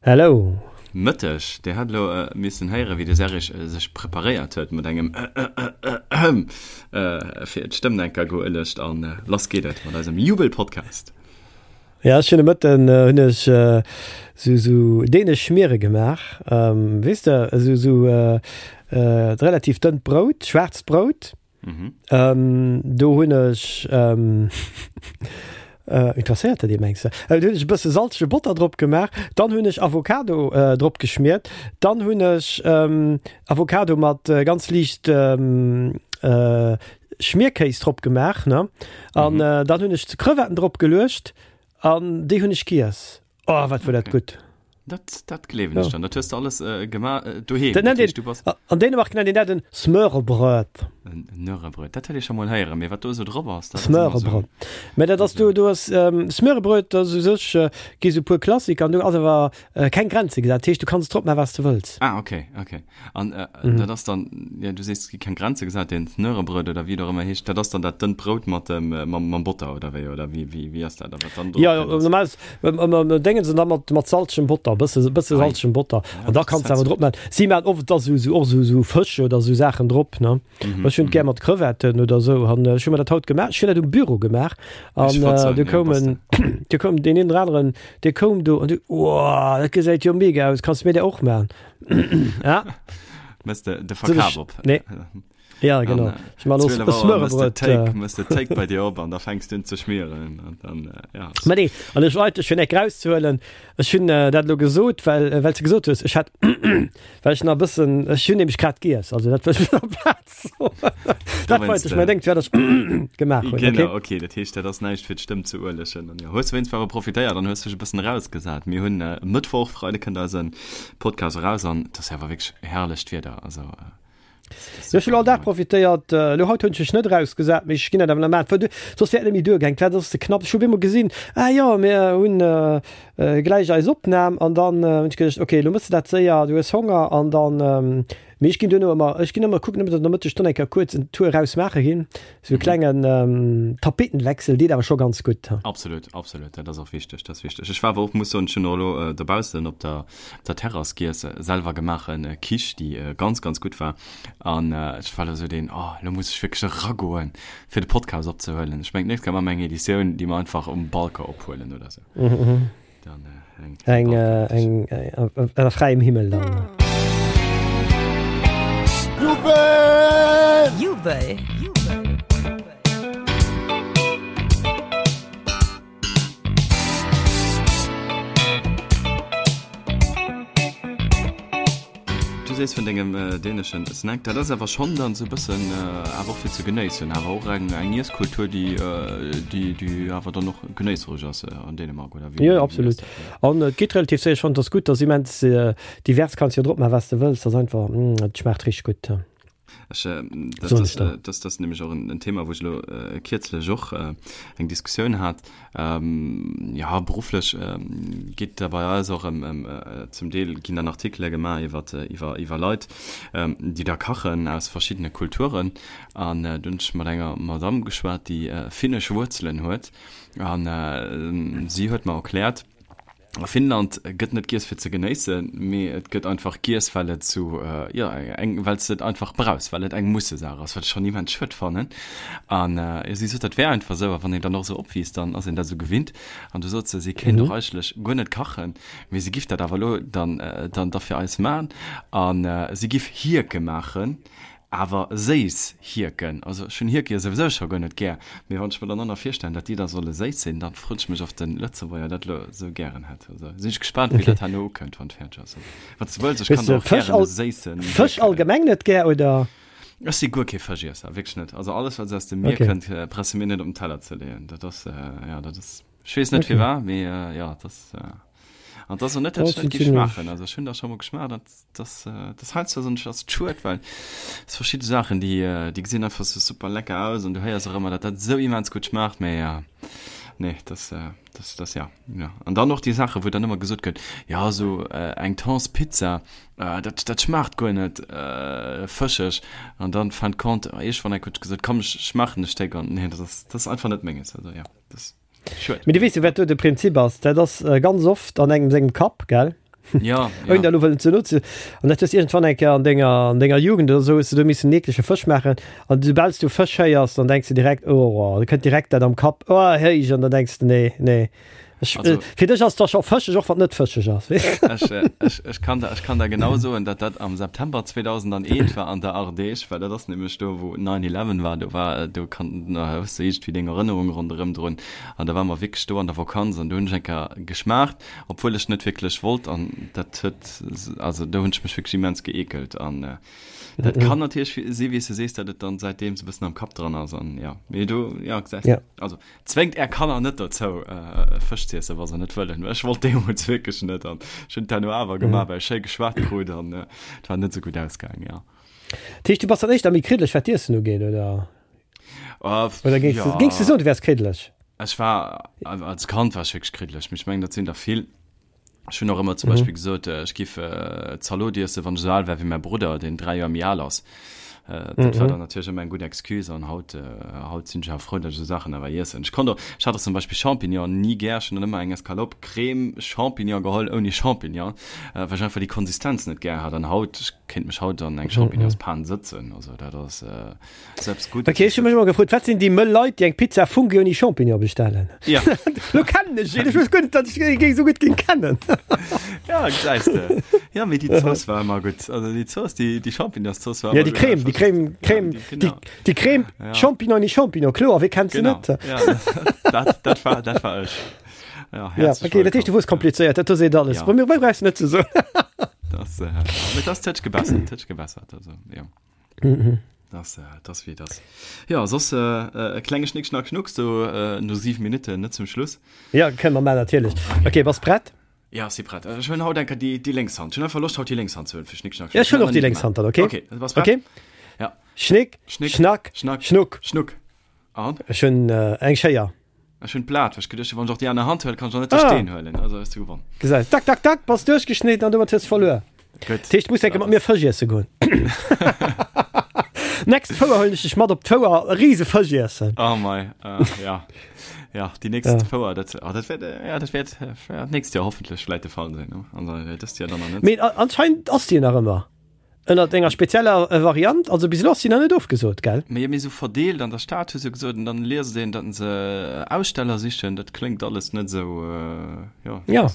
Hello. Mëtteg, Dir hat elo missen héieren, wéi de Serge sech preparéiert huet mat engem Ëhëhëhëm fir d'Stëmm enker geuelegt an lass geet et mat eisem Jubel-Podcast. Ja, ech hunn de Mëtten hunn ech sou sou dänesch Schmiere gemaach, weess de, esou sou relativ dënnt Brout, schwaarzt Brout. Mhm. Ähm, do hunn ech ähm, äh, interesséiert dat Dir mengs du? Äh, do hunn ech e bësse salzege Botter drop gemaach, dann hunn ech Avocado äh, drop geschmiert, dann hunn ech ähm, Avocado mat äh, ganz liicht ähm, äh, Schmierkéis drop gemaach, ne? An mhm. äh, dann hunn ech Crevetten drop geluecht an déi hunn ech giess. Oh, wat war dat gutt. Dat, dat gleewen ech dann. Dat hues du alles äh, gemaach äh, doheem. Dat nennt een, bass... An Dänemark nennt een dat en Smørrebrød. En Smørrebrød, dat huet ee scho mol héieren, mee wat do esou drop ass, dat ass ëmmer esou. Smørrebrød. Mä dat ass du, du ass ähm, Smørrebrød, dat ass u sech äh, gi sou puer Klassiker an do ass awer äh, keng Grenze gesat. Dat heescht, du kanns drop maachen, wat s du wëlls. Ah, okay, okay. An äh, mhm. dat ass dann, ja, du sees, gi keng Grenze gesat, den Smørrebrød oder wéi et och ëmmer heescht, dat ass dann dat dënnt Brout mat dem, äh, mam, mam Botter oder wéi, oder wéi, wéi, wéi ass dat? A wat dann drop Ja, ja, normal Déngen se da mat, mat salzegem Botter, bësse, bësse salzegem Botter. An da kanns de awer drop maachen. Si maachen oft da sou, sou, och sou, sou Fësch oder sou Saachen drop, ne? Mhm, Ech hunn et gär mat Crevetten oder sou. An ech hu mer dat haut gemaach. Ech hunn dat um Büro gemaach. An du koum en, du koum deen een oder aneren, dee koum do an du, Woah, dat gesäit jo mega aus, kanns de mir dat och maachen? Ja. Mëss de de Verkaf op. Nee. Ja, genau. Ech man los Smørrebrød. Mëss de Take bei dir op an da fänks du un ze schmieren an dann ja. Mä nee, an ech wollt fir eng rauszehuelen, ech hunn dat elo gesot, well well s de gesot hues, ech hat well ech nach e bëssen, ech hunn nämlech grad giess, also dat wëll ech op der Plaz soen. Dat wollt ech, mä denkt wat ech gemaach hunn. Genau, okay, dat heescht dat ass näischt fir d'Stëmm ze uelegen. An jo, hues wéinst awer profitéiert an hues dech e bëssen erausgesat. Mir hunn Mëttwoch, Freide kënnt eise Podcast eraus an et ass jo awer wierklech herrlecht Wieder, also. Jo, ech hunn all Dag profitéiert. Elo haut hunn ech mech net erausgesat, mee ech ginn dat awer nach maachen, well du, soss wär et net méi duergaang. D'Waart ass ze knapp. Ech hu op eemol gesinn, ah jo, mir hunn gläich eis Opnam an dann hunn ech geduecht, okay, elo méchs de dat séier, du hues Honger an dann, mee ech ginn duerno ëmmer, ech ginn ëmmer kucken, ëmmer den Nomëtteg dann eng Kéier kuerz en Tour eraus maache ginn, esou e klengen Tapetenwechsel deet awer scho ganz gutt. Absolut, absolut, dat ass och wichteg, dat ass wichteg. Ech war awer och, muss soen, ech hunn och elo dobaussen op der der Terrass giess, selwer gemaachen Quiche, déi ganz ganz gutt war an ech war elo sou deen, oh elo muss ech wierklech eragoen fir de Podcast opzehuelen. Ech mengen d'nächst Kéier maache mer eng Editioun, déi mer einfach um Balcon ophuelen oder sou. Dann eng eng ënner fräiem Himmel dann. Jubel! Jubel! Du sees vun dengem däneschen Snack, dat ass awer schonn dann sou bëssen awer och fir ze genéissen, awer och eng eng Iesskultur, déi déi déi awer dann och genéissereg ass an Dänemark, oder wéi? Jo, absolut. An et geet relativ séier. Ech fannen, et ass gutt, et ass immens divers, kanns jo drop maachen, wat s de wëlls. Et ass einfach, et schmaacht richteg gutt. Ech, äh, dat, das, äh, das, das nämlech och en, en Thema, wou ech elo äh, kierzlech och äh, eng Diskussioun hat. Ähm, ja, berufflech äh, geet da bei eis och ëm, ëm äh, zum Deel ginn dann Artikele gemaach iwwer, äh, iwwer, iwwer Leit, ähm, déi da kachen aus verschiddene Kulturen. An äh, dunn hunn ech mat enger Madame geschwat, déi äh, finnesch Wuerzelen huet. An äh, si huet mer erkläert, A Finnland gëtt net giess fir ze genéissen, mee et gëtt einfach giess well et sou, jo eng, well s de et einfach brauchs, well et eng Mussesaach ass, wat ech schonn immens schued fannen. An jo, si sot, dat wär einfach esou, a wann een dann och esou opwiisst, dann ass een dat esou gewinnt. An du sot se, si kéint och eigentlech guer net kachen, mee si giff dat awer elo dann, dann da fir eis man. A si giff Hierke maachen. Awer séiss Hierken, also ech hunn Hierke jo souwisou scho guer net gär, mee wann ech mer dann och nach virstellen, dat déi da solle séiss sinn, dann froen ech mech, ob de Lëtzebuerger dat elo esou gären hätt. Also sinn ech gespaant, wéi dat herno ukënnt, wann et fäerdeg ass. Also wann s de wëlls, ech kann der och gären e séissen Fësch Hierk. Allgemeng net gär, oder? Ech si guer kee Fëschiesser, wierklech net. Also alles, wat esou aus dem Mier kënnt, brauchs de mir net op den Teller ze leeën. Dat ass, jo, dat ass, ech weess net firwat, mee jo, dat ass, an et ass och net, dat ech net géif schmaachen. Also ech hunn der scho mol geschmaacht an Das, das heiansdo soen ech ass schued, well es verschidde Saachen, déi, déi gesinn einfach sou super lecker aus an du héiers och ëmmer, datt dat sou immens gutt schmaacht, mee ja, nee, das, das, das ja, ja. An dann och déi Saachen, wou dann ëmmer gesot gëtt, ja sou eng Thonspizza, dat, dat schmaacht guer net fëscheg an dann fin de compte, iergendwann eng huet gesot, komm ech schmaachen e Stéck an nee, dat ass, dat ass einfach net menges, also ja, das. Mee du weess jo, wat do de Prinzip ass, dat ass ganz oft an engem sengem Kapp, gell? Ja, ja. Ouni da lo wëllen ze no ze. An dat hues iergendwann eng Kéier an denger, an denger Jugend oder esou, hues de do missen en eeklege Fësch maachen. An soubal s du Fësch héiers, dann denks de direkt, oh, da kënnt direkt dat am Kapp, oh, héich, an dann denks de, nee, nee. Ech, also, fir dech ass da scho fëscheg, och wann net fëscheg ass. Ech, äh, ech, ech, kann da, ech kann da genau soen, dat dat am September 2001 war an der Ardèche, well dat ass nämlech do, wou 9-11 war, do war, äh, do kann, na, hues du iergendwéi deng Erënnerung ronderëm drun. An da war mer wierklech do an der Vakanz an do hunn ech eng Kéier geschmaacht, obwuel ech net wierklech wollt an dat huet, also do hunn ech mech wierklech immens geekelt an äh, dat kann natierlech si wéi s du sees, dat et dann säitdeems e bëssen am Kapp dran ass an ja, mee do, ja, gesäis Ja. also Zwéngt är Kanner net dozou Fësch ze iessen wa se net wëllen. Ech wollt deemools wierklech net an ech hunn et herno awer gemaach, well ech schéi geschwat krut an et war net esou gutt ausgaang, jo. Dat heescht du bass dann éischter méi kriddeleg wat d'Iessen ugeet, oder? Oder géings du, géings du soen du wäers kriddeleg? Ech war, als Kand war ech wierklech kriddeleg, mee ech mengen dat sinn der vill. Ech hunn och ëmmer zum Beispill gesot, ech giff Zalot iessen, wann ech esou al wär wéi mäi Brudder, deen 3 Joer méi al ass. Dat war dann natierlech ëmmer eng gutt Excuse an haut, haut sinn ech awer frou, datt ech esou Saachen awer iessen. Ech konnt och, ech hat och zum Beispill Champignon ni gär. Ech hunn dann ëmmer eng Escalope Crème Champignon geholl ouni Champignon, well ech einfach déi Konsistenz net gär hat. An haut, ech kéint mech haut an eng Champignonspan sëtzen, also dat ass. Selbst gut. Okay, ech hu mech ëmmer gefrot, wat sinn déi mëll Leit, déi eng Pizza Fungi ouni Champignon bestellen? Ja. Lo kennen ech een, ech wosst guer net, datt ech ee géing esou gutt géing kennen. Ja, gesäis de. Ja, mee déi Zooss war ëmmer gutt. Also déi Zooss, déi, déi Champignonszooss war Ja, ëmmer déi gutt. Creme, déi Creme, Creme, Ja, déi, genau. déi Creme, Ja. Champignon ouni Champignon, kloer, wee kennt se Genau. net? Ja, dat, dat war, dat war ech. Ja, Ja, okay, dat heescht, du wosst komplizéiert, dat do seet alles. Ja. Bei mir brauchs du net ze soen. Das, äh, mee das huet sech gebessert, huet sech gebessert, also, ja. Mhm. Das, äh, das wie das. Ja, soss äh, äh, e klenge Schnick, Schnack, Schnuck, so äh, no 7 Minuten, net zum Schluss. Ja, kënne mer maachen, natierlech. Okay, bass prett? Ja, si prett. Ech hunn haut enker déi, déi lénks Hand. Ech hunn einfach Loscht, haut déi lénks Hand ze huelen fir Schnick, Schnack, Ja, ech hunn och déi lénks Hand dann, okay? Okay, bass prett? Okay. Ja. Schnick, Schnick, Schnack, Schnack, Schnuck. Schnuck. An? Ech hunn äh, eng Schéier. Ech hunn d'Blat, well ech geduecht hunn, wann ech och déi aner Hand huelen, kann ech och net de Ah. Steen huelen. Also hues du gewonn. Gesäis, tak, tak, tak, bass duerchgeschnidden an domat hues verluer. Gutt. Dat heescht, du muss enke mat mir Fësch iesse goen. Next Fouer huelen ech dech mat op d'Fouer, e rise Fësch iessen. Oh mei, äh, ja. Ja, déi nächst Ja. Fouer, dat, oh, dat wäert, äh, ja, dat wäert, äh, ja, d'nächst Joer hoffentlech vläit de Fall sinn, ne? Also, äh, dëst Joer dann nach net. Mee a- anscheinend ass déi nach ëmmer. Ënnert enger spezieller Variant, also bis elo ass si nach net ofgesot, gell? Mee méi sou verdeelt an der Stad hu se gesot, an dann liest een, datt se Aussteller sichen, dat kléngt alles net sou, jo. Ja,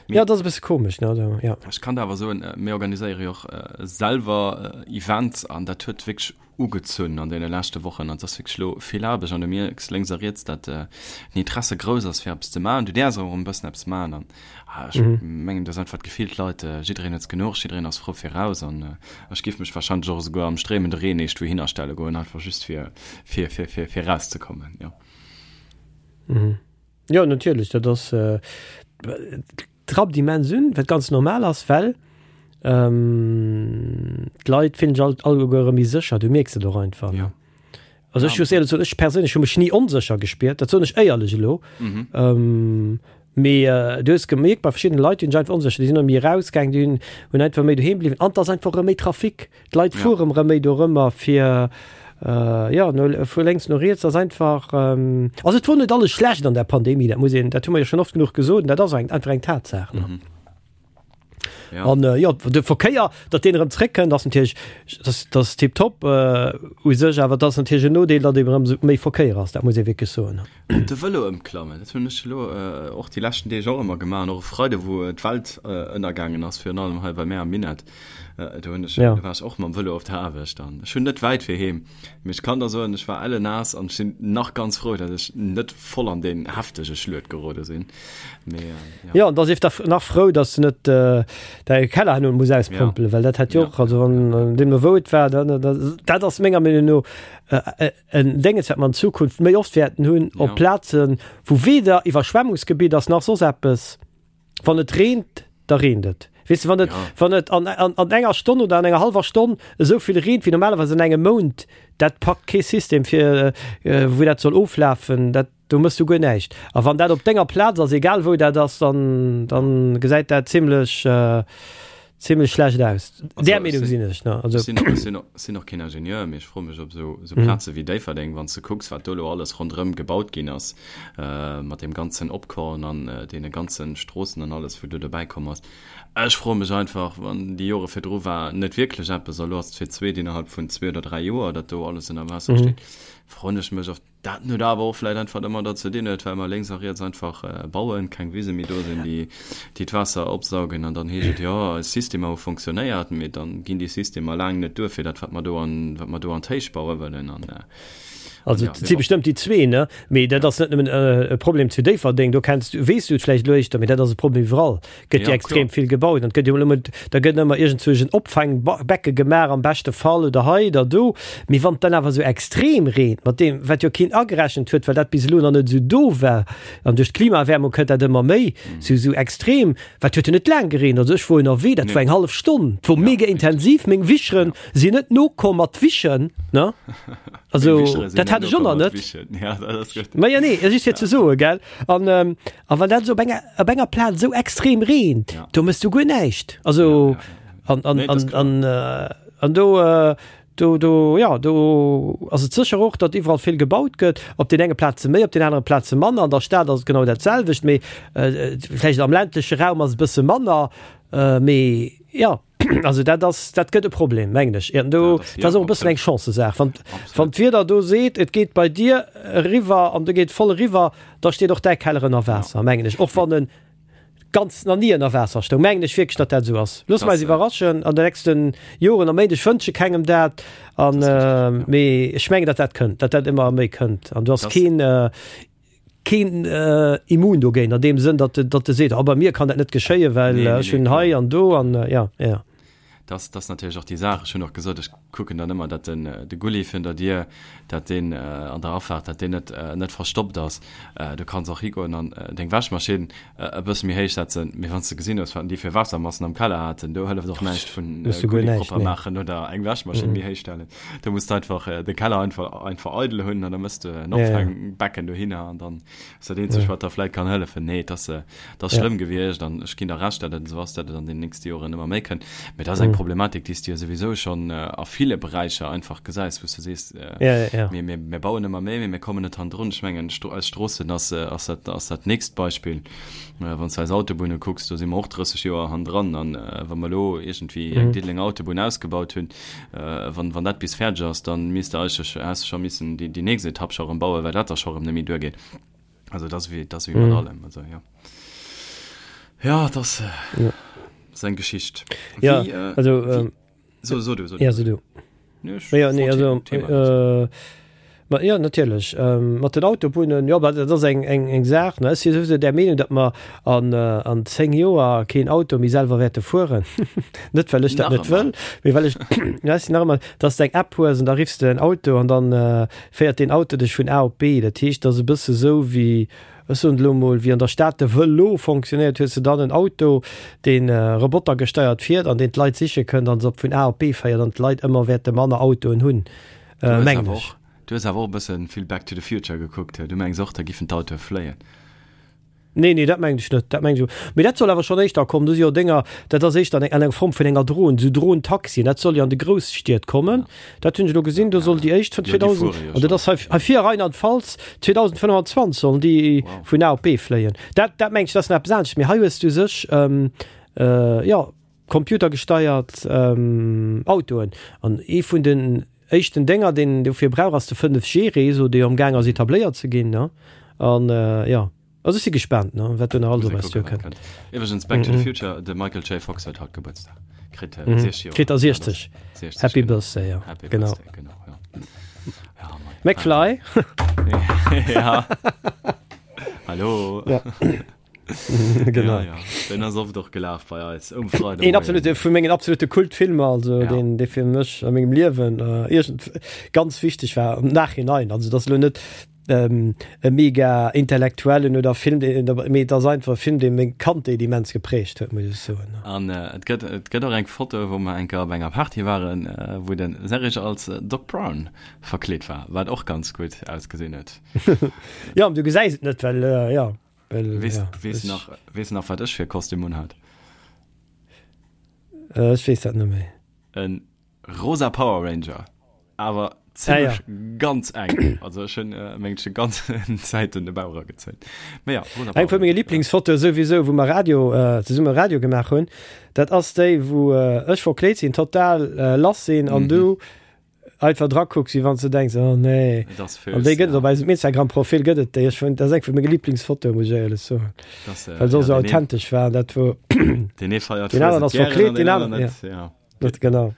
jo, dat ass e bësse komesch, ne, also jo. Ech kann der awer soen, mir organiséiere jo och selwer Events an dat huet wierklech ugezunn an deene leschte Wochen an et ass wierklech elo vill Aarbecht an du mierks lénks a riets, datt den Interesse grouss ass fir eppes ze maachen. Du däerfs och erëm e bëssen eppes maachen an ech mengen, et ass einfach d'Gefill, d'Leit, jiddereen huet genuch, jiddereen ass frou fir raus an ech géif mech warscheinlech och esouguer am stréimende Reen eescht wouhinner stelle goen, einfach just fir fir fir fir fir rauszekommen, jo. Jo, natierlech, dat ass. Trappt immens un, wat ganz normal ass, well d'Leit fillen sech alt alleguer erëm méi sécher, du mierks et och einfach. Ja. Also ech muss éierlech soen, ech perséinlech hu mech ni onsécher gespiert, dat soen ech éierlech elo. Mhm. Mee du hues gemierkt bei verschiddene Leit, déi hunn sech einfach onsécher, déi sinn erëm méi erausgaang, déi hunn hunn einfach méi doheem bliwwen an et ass einfach erëm méi Trafic. D'Leit fuere rëm méi dorëmmer fir, jo, no vu lénks no riets ass einfach, also et wor net alles schlecht an der Pandemie, dat muss een, dat hu mer jo schonn oft genuch gesot an dat ass eng einfach eng Tatsaach, ne. An jo, de Verkéier, datt deen erëm zréckkënnt, ass natierlech, dat ass tiptop u sech, awer et ass natierlech en Nodeel, datt eben erëm méi Verkéier ass, dat muss ee wierklech soen. Op de Vëlo ëmklammen, dat hunn ech elo och déi leschten Deeg och ëmmer gemaach an och e Freide wou d'Welt ënnergaangen ass, virun allem hei bei mär am Minett, do hunn ech, do war ech och mam Vëlo op der Aarbecht an ech hunn net wäit fir heem, mee ech kann der soen, ech war ellennaass an ech sinn nach ganz frou, datt ech net voll an deen heftege Schluet gerode sinn, mee jo. Jo, an da sief der nach frou, datt s de net däi Keller herno muss auspompelen, well dat hätt jo och, also wann deemno wou et war, dann, dat ass menger Meenung no en Dénges, wat mer an Zukunft méi oft wäerten hunn, op Plazen, wou weder Iwwerschwemmungsgebitt ass nach soss eppes. Wann et reent, da reent et. Weess de, wann et, wann et an, an, an enger Stonn oder an enger hallwer Stonn esou vill reent wéi normalerweis an engem Mount, dat packt kee System fir, wou dat soll oflafen, dat, do méchs du guer näischt. A wann dat op denger Plaz ass, egal wou dat ass, dann, dann gesäit dat zimlech. Zimmlech schlecht aus. Där Meenung sinn ech. Ne? Also. Ech sinn, ech sinn, sinn och keen Ingenieur, mee ech froe mech, ob esou, esou mhm. Plaze wéi Déifferdeng, wann s de kucks, wat do elo alles ronderëm gebaut ginn ass, äh, mat deem ganzen Opkorn an äh, deene ganzen Stroossen an alles, wou do dobäi komm ass. Ech froe mech einfach, wann déi Jore virdru war net wierklech eppes, a lo ass et fir d'zweet innerhalb vun zwee oder dräi Joer, datt do alles ënner Waasser mhm. steet, froen ech mech, ob Dat huet awer och vläit einfach domadder ze dinn huet, well mer lénks a riets einfach bauen, keng Wise méi do sinn, déi déi d'Waasser opsaugen. An dann heescht et, jo, eis Systemer hu fonctionnéiert, mee dann ginn déi Systemer laang net duer fir dat, wat mer do an, wat mer do an d'Héicht baue wëllen. An, an Also ja, et si mee bon. bestëmmt déi zwee, ne? Mee dat ass net nëmmen e Problem zu Déifferdeng, do kenns du, weess du et vläicht elo éischter, mee dat ass e Problem iwwerall. Gëtt jo extrem vill gebaut an gëtt jo elo da gëtt ëmmer iergendzwousch en Opfangbecke gemaach am beschte Fall oder hei oder do. Mee wann et dann awer esou extrem reent, mat deem wat jo keen agerechent huet, well dat bis elo nach net esou do war, an duerch d'Klimaerwärmung kënnt dat ëmmer méi esou esou extrem, wat huet jo net laang gereent, also ech wor ënnerwee, dat war eng hallef Stonn, et wor mega intensiv, meng Wicheren sinn net nokomm mat wischen, ne? Also dat hat ech och nach net. Ma jo nee, just fir ze soen, gell? An A wann dat esou op enger, op enger Plaz esou extrem reent, ja. do mëss du guer näischt. Also ja, ja, ja. an, an, nee, an, an, äh, an do, äh, do, do, ja, do ass et sécher och, datt iwwerall vill gebaut gëtt, op den enge Plaze méi, op den anere Plaze manner. An der Stad ass et genau dat selwecht, mee äh, vläicht am ländleche Raum ass et e bësse manner, äh, mee ja. Also dat ass, dat gëtt e Problem, mengen ech. An do, dat ass och e bëssen eng Chancesaach. Wann, wann d'Wieder do seet, et geet bei dir eriwwer an do geet voll eriwwer, da steet och däi Keller ënner Waasser, mengen ech. Och wann en ganz nach ni ënner Waasser stoung, mengen ech wierklech, datt dat esou ass. Loosse mer eis iwwerraschen an de nächste Joren a Méint. Ech wënsche kengem dat, an, mee ech mengen, datt dat kënnt, datt dat ëmmer méi kënnt. An do ass keen, keen immun dogéint an deem Sënn, datt datt e seet, oh bei mir kann dat net geschéien, well ech hunn hei an do an ja, ja. Dat ass natierlech och déi Saach. Ech hunn och gesot, ech kucken dann ëmmer, datt den de Gulli virun der Dier, datt deen an der Afaart, datt deen net net verstoppt ass. Du kanns och higoen an deng Wäschmaschinn e bësse méi héich setzen, mee wann s de gesinn hues, wat déi fir Waassermassen am Keller haten, do hëlleft och näischt vun Gulli propper maachen oder eng Wäschmaschinn méi héich stellen. Du muss einfach de Keller einfach einfach eidel hunn an da mëss de en Opfangbecken dohinner an dann ass dat eenzegt, wat der vläit kann hëllefen. Nee, et ass, et ass schlëmm gewiescht an ech ginn der Recht, datt et esou ass, datt et an den nächste Joren ëmmer méi kënnt. Mee dat ass eng Problematik, déi s de jo souwisou schonn a ville Beräicher einfach gesäis, wou s de sees, mir, mir, mir bauen ëmmer méi, mee mir kommen net hannendrun. Ech mengen, eis Stroossen ass, ass dat, ass dat nächst Beispill. Wann s de eis Autobunne kucks, do si mer och 30 Joer hannendran. An wa mer elo iergendwéi eng Diddelenger Autobunn ausgebaut hunn, Wann, wann dat bis fäerdeg ass, dann misst de eigentlech, häss de scho missen déi, déi nächst Etapp scho erëm bauen, well dat da scho erëm net méi duergeet. Also dat ass wéi, dat ass wéi mat allem. Also jo. Ja, dat ass, Ja. ass eng Geschicht. Ja, Wéi, äh, also, wéi, ähm, so, so du, so du. ja, so du. Nee, ech Ja, nee, wollt also, Thema wechseln. äh, Ma jo, natierlech. Mat den Autobunnen, jo, dat ass eng, eng, eng Saach, ne. Ech si souwisou där Meenung, datt mer an, an 10 Joer keen Auto méi selwer wäerte fueren. Net well ech dat Nach net wëll, ëmmer. mee well ech, ja, ech sinn nach ëmmer, datt s de eng App hues an da riffs de en Auto an dann féiert deen Auto dech vun A op B. Dat heescht, dat ass e bësse sou wéi, ech soen et elo mol, wéi an der Stad de Vëlo fonctionnéiert, hues de dann en Auto, dee robotergesteiert fiert an deen d'Leit siche kënnt an se op vun A op B féiert an d'Leit ëmmer wäerte manner Autoen hunn. Du hues Mengen awer ech. och, du hues awer och e bëssen vill Back to the Future gekuckt. Du mengs och, da giffen d'Autoe fléien? Nee, nee, dat mengen ech net. Dat mengen ech. Mee dat soll awer schonn éischter kommen. Do si jo Dénger, dat ass éischter an eng, an enger Form vun enger Dron, esou Dron-Taxien. Dat soll jo an de Grousstied kommen. Dat hunn ech elo gesinn. Do soll déi éischt vun Jo, déi 2000, fuere jo an dat schonn. ass hei, hei vir a Rheinland-Pfalz, 2025 sollen déi Wow. vun A op B fléien. Dat, dat mengen ech, dat ass nach eppes anescht. Mee hei hues du u sech, jo, computergesteiert Autoen. An ee vun den éischten Dénger, deen een dofir brauch, ass de 5G-Réseau, dee jo am gaang ass etabléiert ze ginn. An jo, also ech si gespaant, wat do nach alles op eis duerkënnt. Iwwregens, Back to the Future, de Michael J. Fox huet haut Gebuertsdag, kritt 60 Joer. Kritt der 60. Happy Birthday, jo. Happy Genau. Birthday, genau, jo. Ja, mei. McFly. Ja. Hallo. Ja. genau. Ja, ja. Den ass oft och gelaf bei eis um Freide. Een absolute vu mengen absolute Kultfilmer, also ja. den dee fir mech a mengem Liewen äh, irgend ganz wichteg war am Nachhinein. Also das lo net ähm, e mega intellektuellen oder Film, mee das einfach Film, dee meng Kandheet immens geprägt huet, muss ech soen. An äh, et gëtt et gëtt och eng Foto, wou mer eng Kéier op enger Party waren, äh, wou den Serge als äh, Doc Brown verkleet war, wat och ganz gutt ausgesinn huet. Ja, du gesäis et net, well äh, ja. Well, Weess, ja, weess ech, nach, weess nach, wat ech fir e Kostüm unhat? Ech weess dat net méi. E rosa Power Ranger, awer zimmlech ah, ja. ganz eng. Also ech hunn äh, meng schon ganz Zäiten de Bauch eragezéit. Mee ja, rosa Eng vu menge Lieblingsfotoe souwisou, wou mer Radio, äh, zesumme Radio gemaach hunn, dat ass déi, wou äh, ech verkleet sinn, total äh, lass sinn an mhm. du einfach dra kucks, wéi wann s du denks, oh nee. Et ass An déi gëtt et op eisem Instagram-Profil gëtt et déi. Ech fand, dat ass eng vu menge Lieblingsfotoe, muss ech éierlech soen. Das, äh, Well se och sou authentesch war, dat wou Den ee feiert Den aneren ass verkleet, den aneren, ja. ja. Dat genau.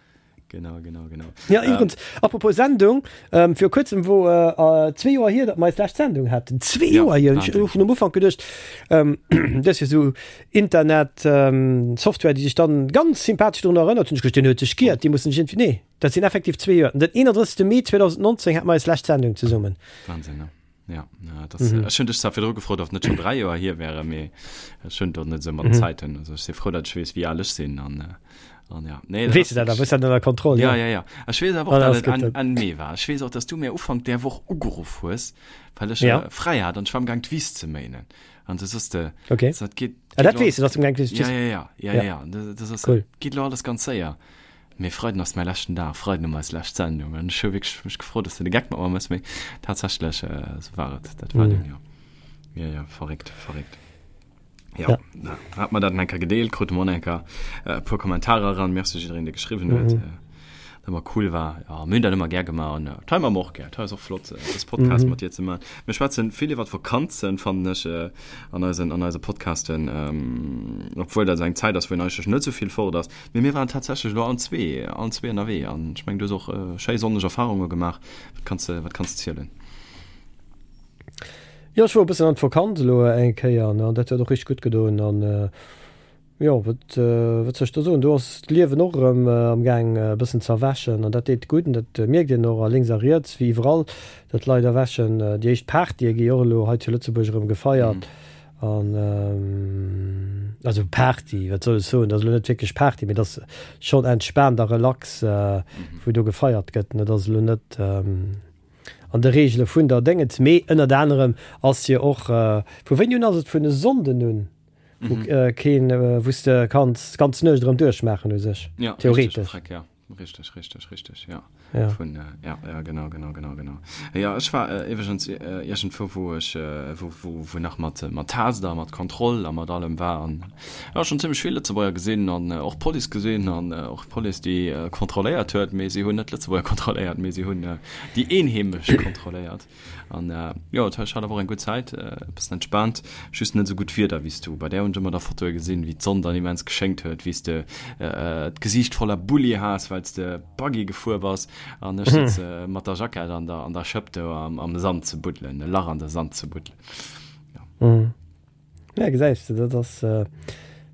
Genau, genau, genau. Ja, iwwerens, apropos Sendung, ähm, viru kuerzem wor äh, zwee Joer hier, datt mer eis lescht Sendung haten. Zwee Ja, Joer hier! Ech Wahnsinn. hu vun am Ufank geduecht, ähm, dat ass jo sou Internet, ähm, Software, déi sech dann ganz sympathesch drun erënnert, hunn ech geduecht, deen huet sech giert, déi mussen sech iergendwéi, nee, dat sinn effektiv zwee Joer. Den 31. Mee 2019 hate mer eis lescht Sendung zesummen. Wahnsinn, ne? Ja, ja das, mhm. Ech hunn dech zwar virdru gefrot, ob net schon 3 Joer hier wäre, mee ech hunn dort net sou mat mhm. Zäiten. Also ech si frou, dat ech weess, wéi al ech sinn an, äh, an ja. Nee, weess du dat, da bist du ënner Kontroll. Ja, ja, ja. Ech weess awer och, ah, dat et Enn, Enn Mee war. Ech weess och, dass du mir Ufank där Woch ugeruff hues, well ech ja. äh, fräi hat an ech war am Gang d'Wiss ze méinen. An du sos de, okay. dat geht, ah, dat weess du, dass du am Gang d'Wiss Ja, ja, ja, ja, ja, ja. Das, das ass, cool. geht lo alles ganz séier. Mee Freiden ass mäi leschten Dag, Freiden hu mer eis lescht Sendung an ech hu wierklech mech gefrot, dass de de Geck mat mer mëss, mee tatsächlech esou war et, dat war dunn, jo. Jo, jo, verréckt, verréckt. Jo, da hat mer dat nach eng Kéier gedeelt, krute mer och nach eng Kéier e puer Kommentarer eran. Merci jiddereen, dee geschriwwen huet, dat ëmmer cool war. Jo, mir hunn dat ëmmer gär gemaach an dat hei maache mer och gär. Dat hei ass och flott, dës Podcast mat dir ze maachen. Mir schwätzen vill iwwer Vakanzen, fannen ech, an eisen, an eise Podcasten, obwuel dat esou eng Zäit ass, wou een eigentlech net esou vill fort ass. Mee mir waren tatsächlech elo allen zwee, allen zwee ënnerwee an ech mengen, du hues och schéi sonneg Erfarunge gemaach. Wat kanns de, wat kanns de zielen? Jo, ech wor e bëssen an d'Vakanz elo eng Kéier an dat huet och richteg gutt gedoen. An jo, wat, wat soll ech do soen, do ass d'Liewen och erëm am Gaang e bëssen ze erwächen an dat deet gutt an dat mierkt een och a lénks a riets, wéi iwwerall, datt d'Leit erwächen. Déi éischt Partye gi och elo hei zu Lëtzebuerg erëm gefeiert. An also Party, wat soll ech soen, dat ass elo net wierklech Party, mee dat ass schonn entspaant a relax, wou do gefeiert gëtt. Dat ass elo net an de Reegele vun der Déngens, mee ënnert anerem ass jo och, vu wéini un ass et, vun e Sonnden un, wou keen, wou s de kanns d'ganz Nuecht erëm duerchmaachen u sech, theoretesch. Richteg, richteg, richteg, ja. Ja. Vun, äh, ja, ja, genau, genau, genau, genau. Ja, ech war äh, iwwregens äh, iergendwou, wou ech, äh, wou, wou, wou nach mat, äh, mat Taster, mat Kontroll a mat allem war an ja, schon zimmlech vill Lëtzebuerger gesinn an äh, och Police gesinn an äh, och Police, déi äh, kontrolléiert huet, mee si hunn net Lëtzebuerger kontrolléiert, mee si hunn äh, déi Eenheemesch kontrolléiert. An jo, ech hat awer och eng gutt Zäit, e bëssen entspaant, just net esou gutt Wieder wéi s du. Bei där hunn ech ëmmer da Fotoe gesinn, wéi d'Sonn dann immens geschéngt huet, wéi s de d'Gesiicht voller Bulli has, well s de Buggy gefuer bass an ech sëtze mat der Jackett an der an der Schëpp do am Sand ze buddelen, e Lach an de Sand ze buddelen. Jo. Ja, gesäis de, dat ass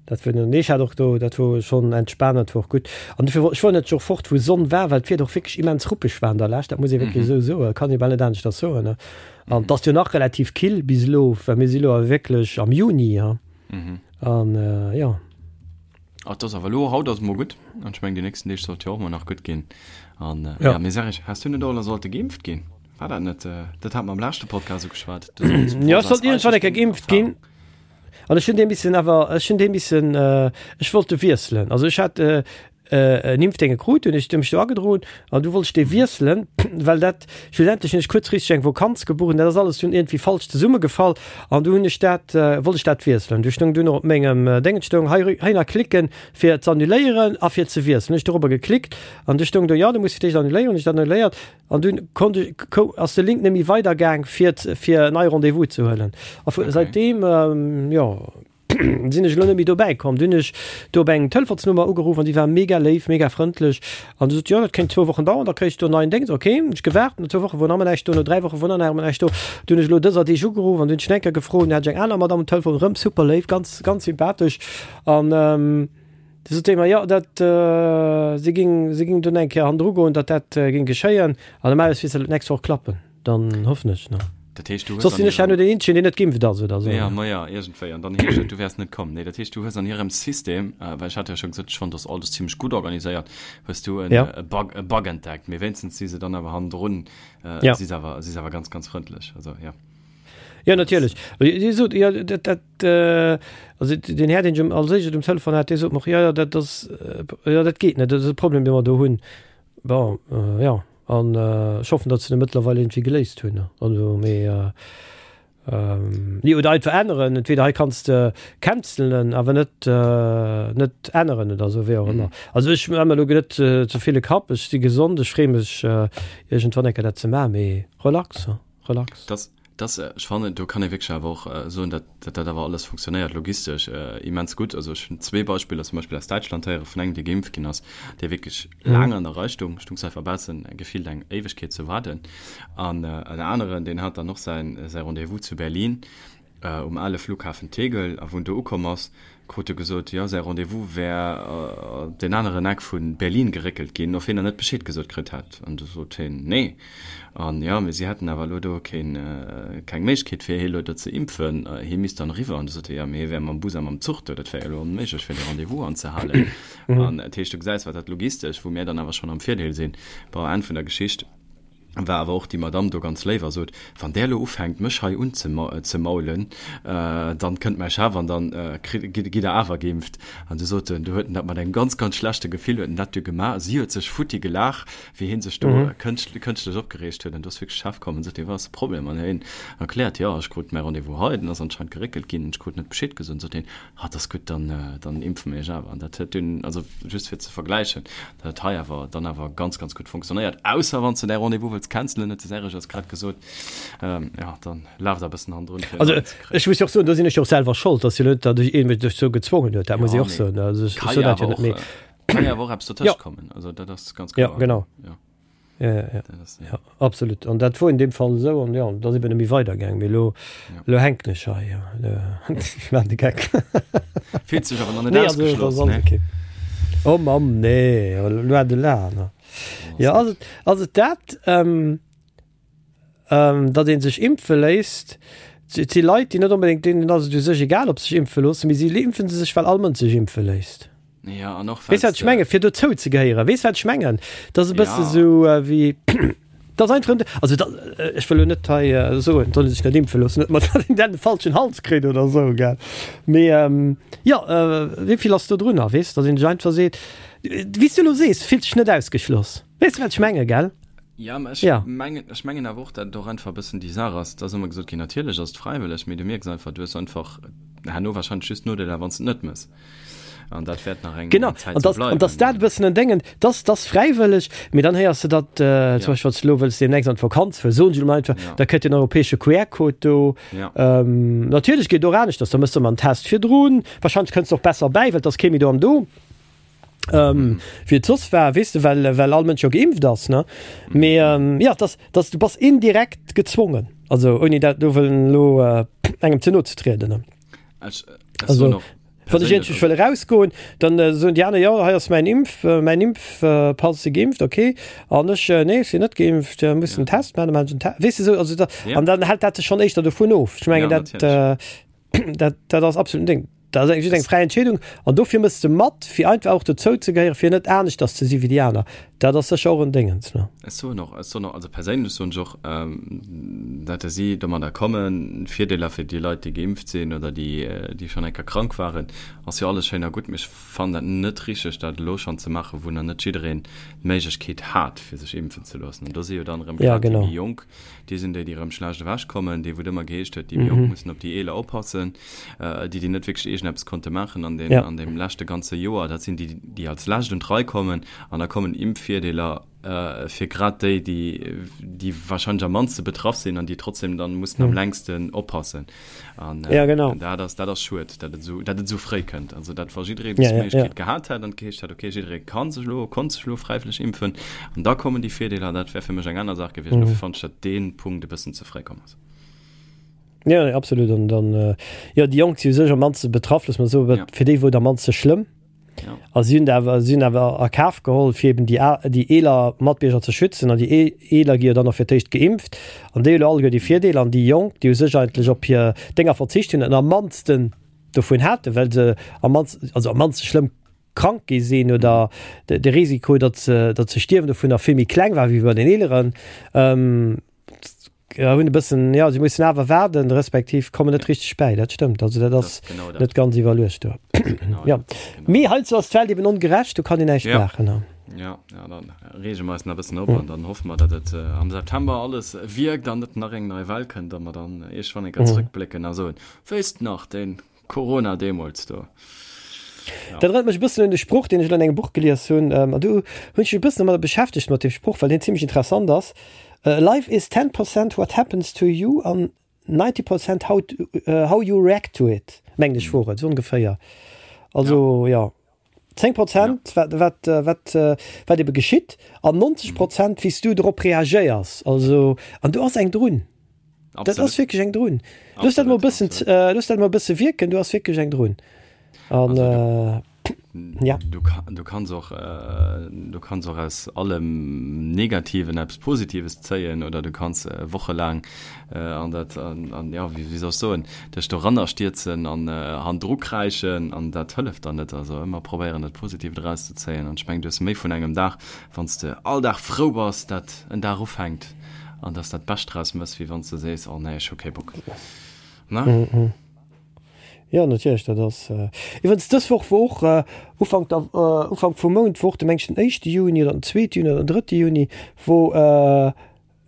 dat wor, nee, ech hat och do, dat wor schonn entspaant, dat wor och gutt. An dofir wor, ech wor net och fort, wou Sonn war, well d'Wieder och wierklech immens ruppeg war an der Lescht, dat muss ee wierklech esou soen, kann ee bal net aneschters soen, ne. An et ass jo nach relativ kill bis elo, well mir si lo awer wierklech am Juni, ha. An jo. Ah, et ass awer elo, haut ass et mol gutt, an ech mengen déi nächsten Deeg sollt jo och mol nach gutt ginn. An ja, mee sag ech, has du net och elo sollte geimpft ginn? War dat net, dat hat mer am leschte Podcast ugeschwat. Du solls, Ja, ech sollt iergendwann eng Kéier geimpft ginn. An ech hunn dee missen awer, ech hunn dee missen, ech wollt de wiesselen. Also ech hat en Impfdénge krut, hunn ech mech do agedroen an du wollt ech dee wiesselen, well dat schlussendlech hunn ech kuerzfristeg eng Vokanz gebucht an dat ass alles dunn iergendwéi falsch zesummegefall an du hunn ech dat, wollt ech dat wiesselen. Du stoung dunn och op mengem Déngen stoung hei, heihinner klicken fir ze annuléieren a fir ze wiesselen. Hunn ech dorobber geklickt an du stoung do, jo du muss fir d'éischt annuléieren. Hunn ech dat annuléiert An dunn konnt ech, kou, ass de Link net méi weider gaang fir fir en neie Rendez-vous ze huelen. A vu, Okay. säitdeem, jo, sinn ech elo net méi dobäi komm. Dunn hunn ech do op eng Telefonsnummer ugeruff an déi war mega léif, mega frëndlech an du sot, jo, dat kéint zwou Wochen dauern, da kréis du en neien Déngs. Ok, hunn ech gewaart, no zwou Woche wor nach ëmmer näischt do, no 3 Woche wor nach ëmmer näischt do. Dunn hunn ech elo dëser Deeg ugeruff an dunn hunn ech eng Kéier gefrot, dunn hat ech eng aner Madamm um Telefon, erëm super léif, ganz, ganz sympathesch an, Du sot déi mer, jo, dat, si ging, si ging dunn eng Kéier hannendru goen, datt dat ging geschéien. An normalerweis misst dat d'nächst Woch klappen. Dann hoffen ech, ne? Dat heescht, du hues Soss sinn ech herno deen Eenzegen, deen net geimpft ass, oder esou. Ja, ma ja, iergendwéi. An dann heescht et, du wäers net komm. Nee, dat heescht, du hues an hirem System, well ech hat jo scho gesot, ech fonnt, dass alles zimmlech gutt organiséiert, hues du en, Ja. e Bug, e Bug entdeckt. Mee wéinstens si se dann awer hannendrun, Ja. si se awer, si se awer ganz, ganz frëndlech. Also, ja. Jo, natierlech. Dir sot, jo, dat, dat, also den Här, deen ech als éischt um Telefon hat, dee sot mer och, jo, jo, dat ass, jo, dat geet net, dat ass e Problem, dee mer do hunn. Bon, jo, an ech hoffen, datt se e mëttlerweil iergendwéi geléist hunn. Also, mee, nee, oder einfach änneren, entweder hei kanns de cancelen, awer net, net änneren oder esou, wéi och ëmmer. Also ech maache mer elo net ze vill e Kapp, ech si gesond, ech freeë mech iergendwann eng Kéier dat ze maachen, mee relax, relax. Dass, dass, ech fannen, do kann ee wierklech awer och soen, dat, dat dat awer alles funktionéiert logistesch immens gutt. Also ech hunn zwee Beispiller zum Beispill aus Däitschland héiere vun engem, dee geimpft ginn ass, dee wierklech laang an der Rei stung, stung einfach baussen gefillt eng Éiwegkeet ze waarden. An en aneren, deen hat dann och säin, säi Rendez-vous zu Berlin um ale Flughafen Tegel, a wou en do ukomm ass, krut e gesot, jo, säi Rendez-vous wär op deen aneren Eck vu Berlin geréckelt ginn, of hien nach net Bescheed gesot kritt hätt. An du sot hien, nee. An jo, mee si hätten awer elo do keen, keng Méiglechkeet, fir hie elo do ze impfen, hie misst dann eriwwer. An du sot hie, jo, mee hie wär mam Bus a mam Zuch do, dat wär jo elo onméiglech, fir de Rendez-vous anzehalen. An dat heescht, du gesäis, wat dat logistesch, wou mir dann awer schonn am Virdeel sinn. Bon, Enn vun der Geschicht. War awer och déi Madame do ganz léif a sot, Wann där elo ufänkt, mech hei unzemaulen, dann kënnt mäi Chef an dann gitt der awer geimpft. An du sot en, du huet en dat mat engem ganz, ganz schlechte Gefill huet en dat du gemaach. Si huet sech futti gelaach, wéi hie sech do kënschtlech opgereegt huet. An du ass wierklech de Chef komm an sot, Jo, wat ass de Problem? An hien erkläert, Jo, ech krut mäi Rendez-vous hei, den ass anscheinend geréckelt ginn, ech krut net Bescheed gesot. An sot hien, Ah, dat ass gutt, dann, dann impfe mir iech awer. An dat huet dunn, also just fir ze vergläichen, dat huet hei awer dann awer ganz, ganz gutt funktionéiert. Ausser wann s de däi Rendez-vous wëlls cancelen, huet de Serge eis grad gesot, ähm, ja, dann laf der e bëssen hannendrun, fir en Also neien ze kréien. ech muss jo och soen, do sinn ech jo och selwer schold, dass jo net, datt ech ee mech dozou gezwongen huet, dat muss ech och soen. Also ech soen dat jo net, mee. Kann jo awer och eppes dertëscht kommen, also dat ass ganz kloer. Ja, genau. Ja. Ja, ja, ja. Das, ja. ja absolut. An dat wor in dem Fall esou an ja, da si net méi weidergaang, mee lo, ja. lo hänken ech hei. Ja. Ech maan de Geck. Fillt sech awer nach net nee, ausgeschloss, also, ne? Okay. Oh Mamm, nee, loin de là. Ne? Oh, ja, also, also dat, ähm, ähm, datt ee sech impfe léisst, et si Leit, déi net onbedéngt, deenen ass et u sech egal, ob se sech impfe loossen, mee si impfe sech, well all Mënsch sech impfe léisst. Ja, an och Weess wat ech menge fir dozou ze gehéieren? Weess wat ech mengen? Dat ass e bësse ja. sou äh, wéi dat ass einfach also dat, äh, ech wëll lo net hei äh, soen, soll sech net impfe loossen, net mat den falschen Hals kritt oder sou gell. Mee ähm, ja äh, wéi vill ass do drunner, weess, datt een sech einfach seet, wéi s du lo sees, fillt sech net ausgeschloss. Weess du wat ech menge gell? Ja, mä ech ja. mengen, ech mengen awer och, dat et och einfach e bëssen déi Saach ass, et ass ëmmer gesot ginn, natierlech ass et fräiwëlleg, mee du mierks einfach, du hues einfach herno wahrscheinlech just Nodeeler, wann s de et net mëss. An dat wäert nach eng genau. Zäit sou bleiwen. An dass dat e bëssen en Déngen, dass dass fräiwëlleg, mee dann héiers de dat, äh, zum Beispill, wann s de elo wëlls deemnächst an d'Vakanz fueren, soen ech elo mol einfach, ja. da kënnt den europäesche QR-Code do. Ja. Ähm, natierlech geet och aneschters, da mëss de emmer en Test virdrun, wahrscheinlech kënns de och besser bäi, well et ass kee méi do am Do. Ähm, wéi et soss war, weess de, well, well all Mënsch jo geimpft ass, ne? Mee ähm, ja, dass, dass du bass indirekt gezwongen, also ouni dat do wëllen elo äh, engem ze no ze trieden, ne? Ech, ech Also, soen och wann ech iergendwéi wëll erausgoen, dann äh, soen déi aner, jo, hei ass mäin Impf, äh, mäin Impfpass, si geimpft, okay. An ech, äh, nee, ech sinn net geimpft, äh, muss en Test maachen, dann maachen ech en Test. Weess de, sou, also da, Ja. an dann hält dat sech schonn éischter dovun of. Ech mengen, Ja, dat, äh, dat, dat ass absolut en Ding. Dat ass just eng fräi Entscheedung an dofir mëss de mat, fir einfach och dozou ze gehéieren, fir net aneschters ze si wéi déi aner. Dat ass sécher och en Déngens, ne? Ech soen och, ech soen och, also perséinlech soen ech och, dat si domadder kommen, Virdeeler fir déi Leit, déi geimpft sinn oder déi, déi schonn eng Kéier krank waren, ass jo alles schéin a gutt, mee ech fannen dat net richteg, dat elo schonn ze maachen, wou nach net jiddereen d'Méiglechkeet hat, fir sech impfen ze loossen. An do si jo dann erëm grad déi méi Jonk, Déi sinn déi, déi erëm schlecht ewechkommen, déi wou et ëmmer geheescht huet, déi méi Jonk mussen op déi Eeler oppassen, déi, déi net wierklech iergendeppes konnte maachen an deem, an deem leschte ganze Joer, dat sinn déi, déi als lescht un d'Rei kommen. An da kommen Impfvirdeeler fir grad déi, déi, déi wahrscheinlech am mannste betraff sinn an déi trotzdem dann mussen am längsten oppassen. An ja, genau. dat ass, dat ass schued, dat et esou, dat et esou fréi kënnt. Also dat wa jidderee bis ja, ja, Méiglechkeet ja. gehat hätt an geheescht hätt, okay, jidderee kann sech elo, konnt sech elo fräiwëlleg impfen an da kommen déi Virdeeler, dat wär fir mech eng aner Saach gewiescht. Mhm. Dofir fand ech, dat dee Punkt e bëssen ze fréi komm ass. Ja, nee, absolut. An dann, äh, ja, déi Jonk si u sech am mannste betraff, looss mer soen, ja. fir déi wor et am mannste schlëmm. Ja. A si hunn awer, si hunn awer a Kaf geholl, fir eben déi, déi eeler Matbierger ze schützen. An déi eeler gi jo dann och fir d'éischt geimpft. An déi hu lo alleguer déi Virdeeler. An déi Jonk, déi u sech eigentlech op hir Dénger verzicht hunn an am mannsten dovun haten, well se am mannsten, also am mannste schlëmm krank gi sinn oder de Risiko, datt se, datt se stierwen dovunner vill méi kleng war wéi bei den Eeleren. hunn e bëssen, jo, si mussen awer waarden, respektiv kommen net richteg bäi. Dat stëmmt, also dat ass net ganz iwwerluecht do. Jo, mee heizou ass d'Welt eben ongerecht, do kann een näischt maachen. Jo, jo, dann reege mer eis nach e bëssen op an dann hoffe mer, datt et am September alles wierkt an net nach eng nei Well kënnt a mer dann iergendwann eng Kéier zrëckblécken a soen, Wéisst nach, dee Corona deemools do. Ja. Dat erënnert mech e bëssen un de Sproch, deen ech elo an engem Buch gelies hunn. An do hunn ech mech e bëssen domadder beschäftegt mat deem Sproch, well deen zimmlech interessant ass. Life is 10 percent what happens to you an 90 percent how, how you react to it, mengen ech wor et, esou ongeféier. Also ja. 10 Prozent ja. wat, wat, wat, wat ebe geschitt an 90 Prozent wéi s du drop reagéiers. Also an do ass eng drun. Dat ass wierklech eng drun. Looss dat mol bëssen, looss dat mol bësse wierken, do ass wierklech eng drun. An äh, ja. Du, du kanns och äh, du kanns och aus allem Negativen eppes Positives zéien oder du kanns äh, wochelaang äh, an dat an, an ja wéi, wéi soll ech soen dech doranner stierzen an äh, handru kräischen an dat hëlleft dann net. Also ëmmer probéieren dat Positiivt erauszezéien an ech mengen du hues méi vun engem Dag wann s de all Dag frou bass dat en Dag ufänkt an dass dat Bescht draus mëss, wéi wann s de sees, oh nee, ech hu kee Bock. Ne? Mm -hmm. Ja, natierlech, dat ass. Äh, iwwerens dës Woch wor och äh, Ufank, der, äh, Ufank vum Mount wor de mengen den éischte Juni oder den zweete Juni oder den drëtte Juni, wou äh,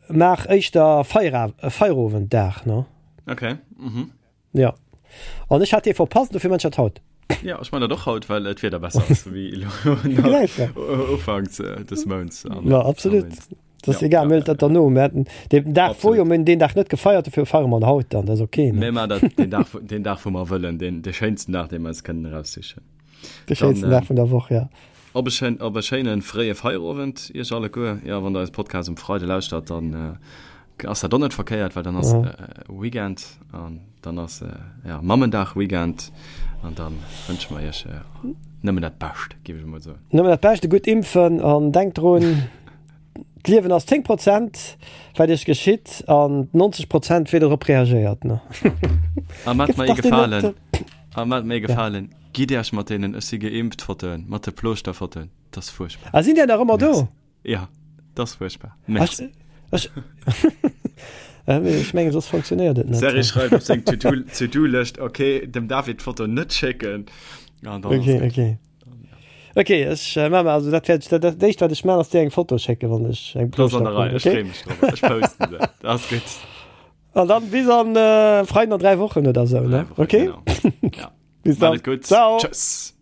maach éischter Feira, äh, Feierowenddag, ne? Okay. Mhm. Ja. An ech hat dee verpasst, dofir man ech dat haut. Ja, ech man dat och haut, well et d'Wieder besser ass wéi elo ufanks des Mounts. Ja, absolut. Dat ass egal, mir huelen dat derno. Mir haten deen Dag wor jo, mir hunn deen Dag net gefeiert, dofir feiere mer en haut dann, dat ass ok. Mir man dat deen Dag, deen Dag wou mer wëllen, deen, dee schéinsten Dag, dee mer eis kënnen eraussichen. De schéinsten Dag vun der Woch, ja. Op e schéin, op e schéine fréie Feierowend iech alleguer. Jo, wann der eise Podcast um Freide lauschtert, dann ass dat och net verkéiert, well dann ass Weekend an dann ass ja Mammendag Weekend an dann wënsche mer iech nëmmen dat Bescht, géif ech emol soen. Nëmmen dat Bescht, gutt impfen an denkt drun, d'Liewen ass 10 Prozent wat iech geschitt an 90 Prozent wéi der drop reagéiert. Ne? A mat mer ee Gefalen, a mat mer ee Gefalen, gitt iech mat deenen Ech si geimpft Fotoen, mat de Plooschter-Fotoen, dat ass fuerchtbar. A sinn déi nach ëmmer do? Ja, dat ass fuerchtbar. Merci. Ech, ech mengen, soss funktionéiert et net. Serge schreift op seng To-Do-Lëscht, okay, dem David d'Foto net schécken. An dann okay, okay. Okay, ech äh, maache also dat wäert dat, dat éischt wat ech maachen ass dir eng Foto schécken, wann ech eng Das an der Rei, okay? Ech freeë mech drop. Ech posten se. Dat ass gutt. An dann bis an äh, Freiden an 3 Wochen oder sou, ne? Wochen, okay? Genau. Ja. Bis dann. Gutt. Ciao. Tschüss.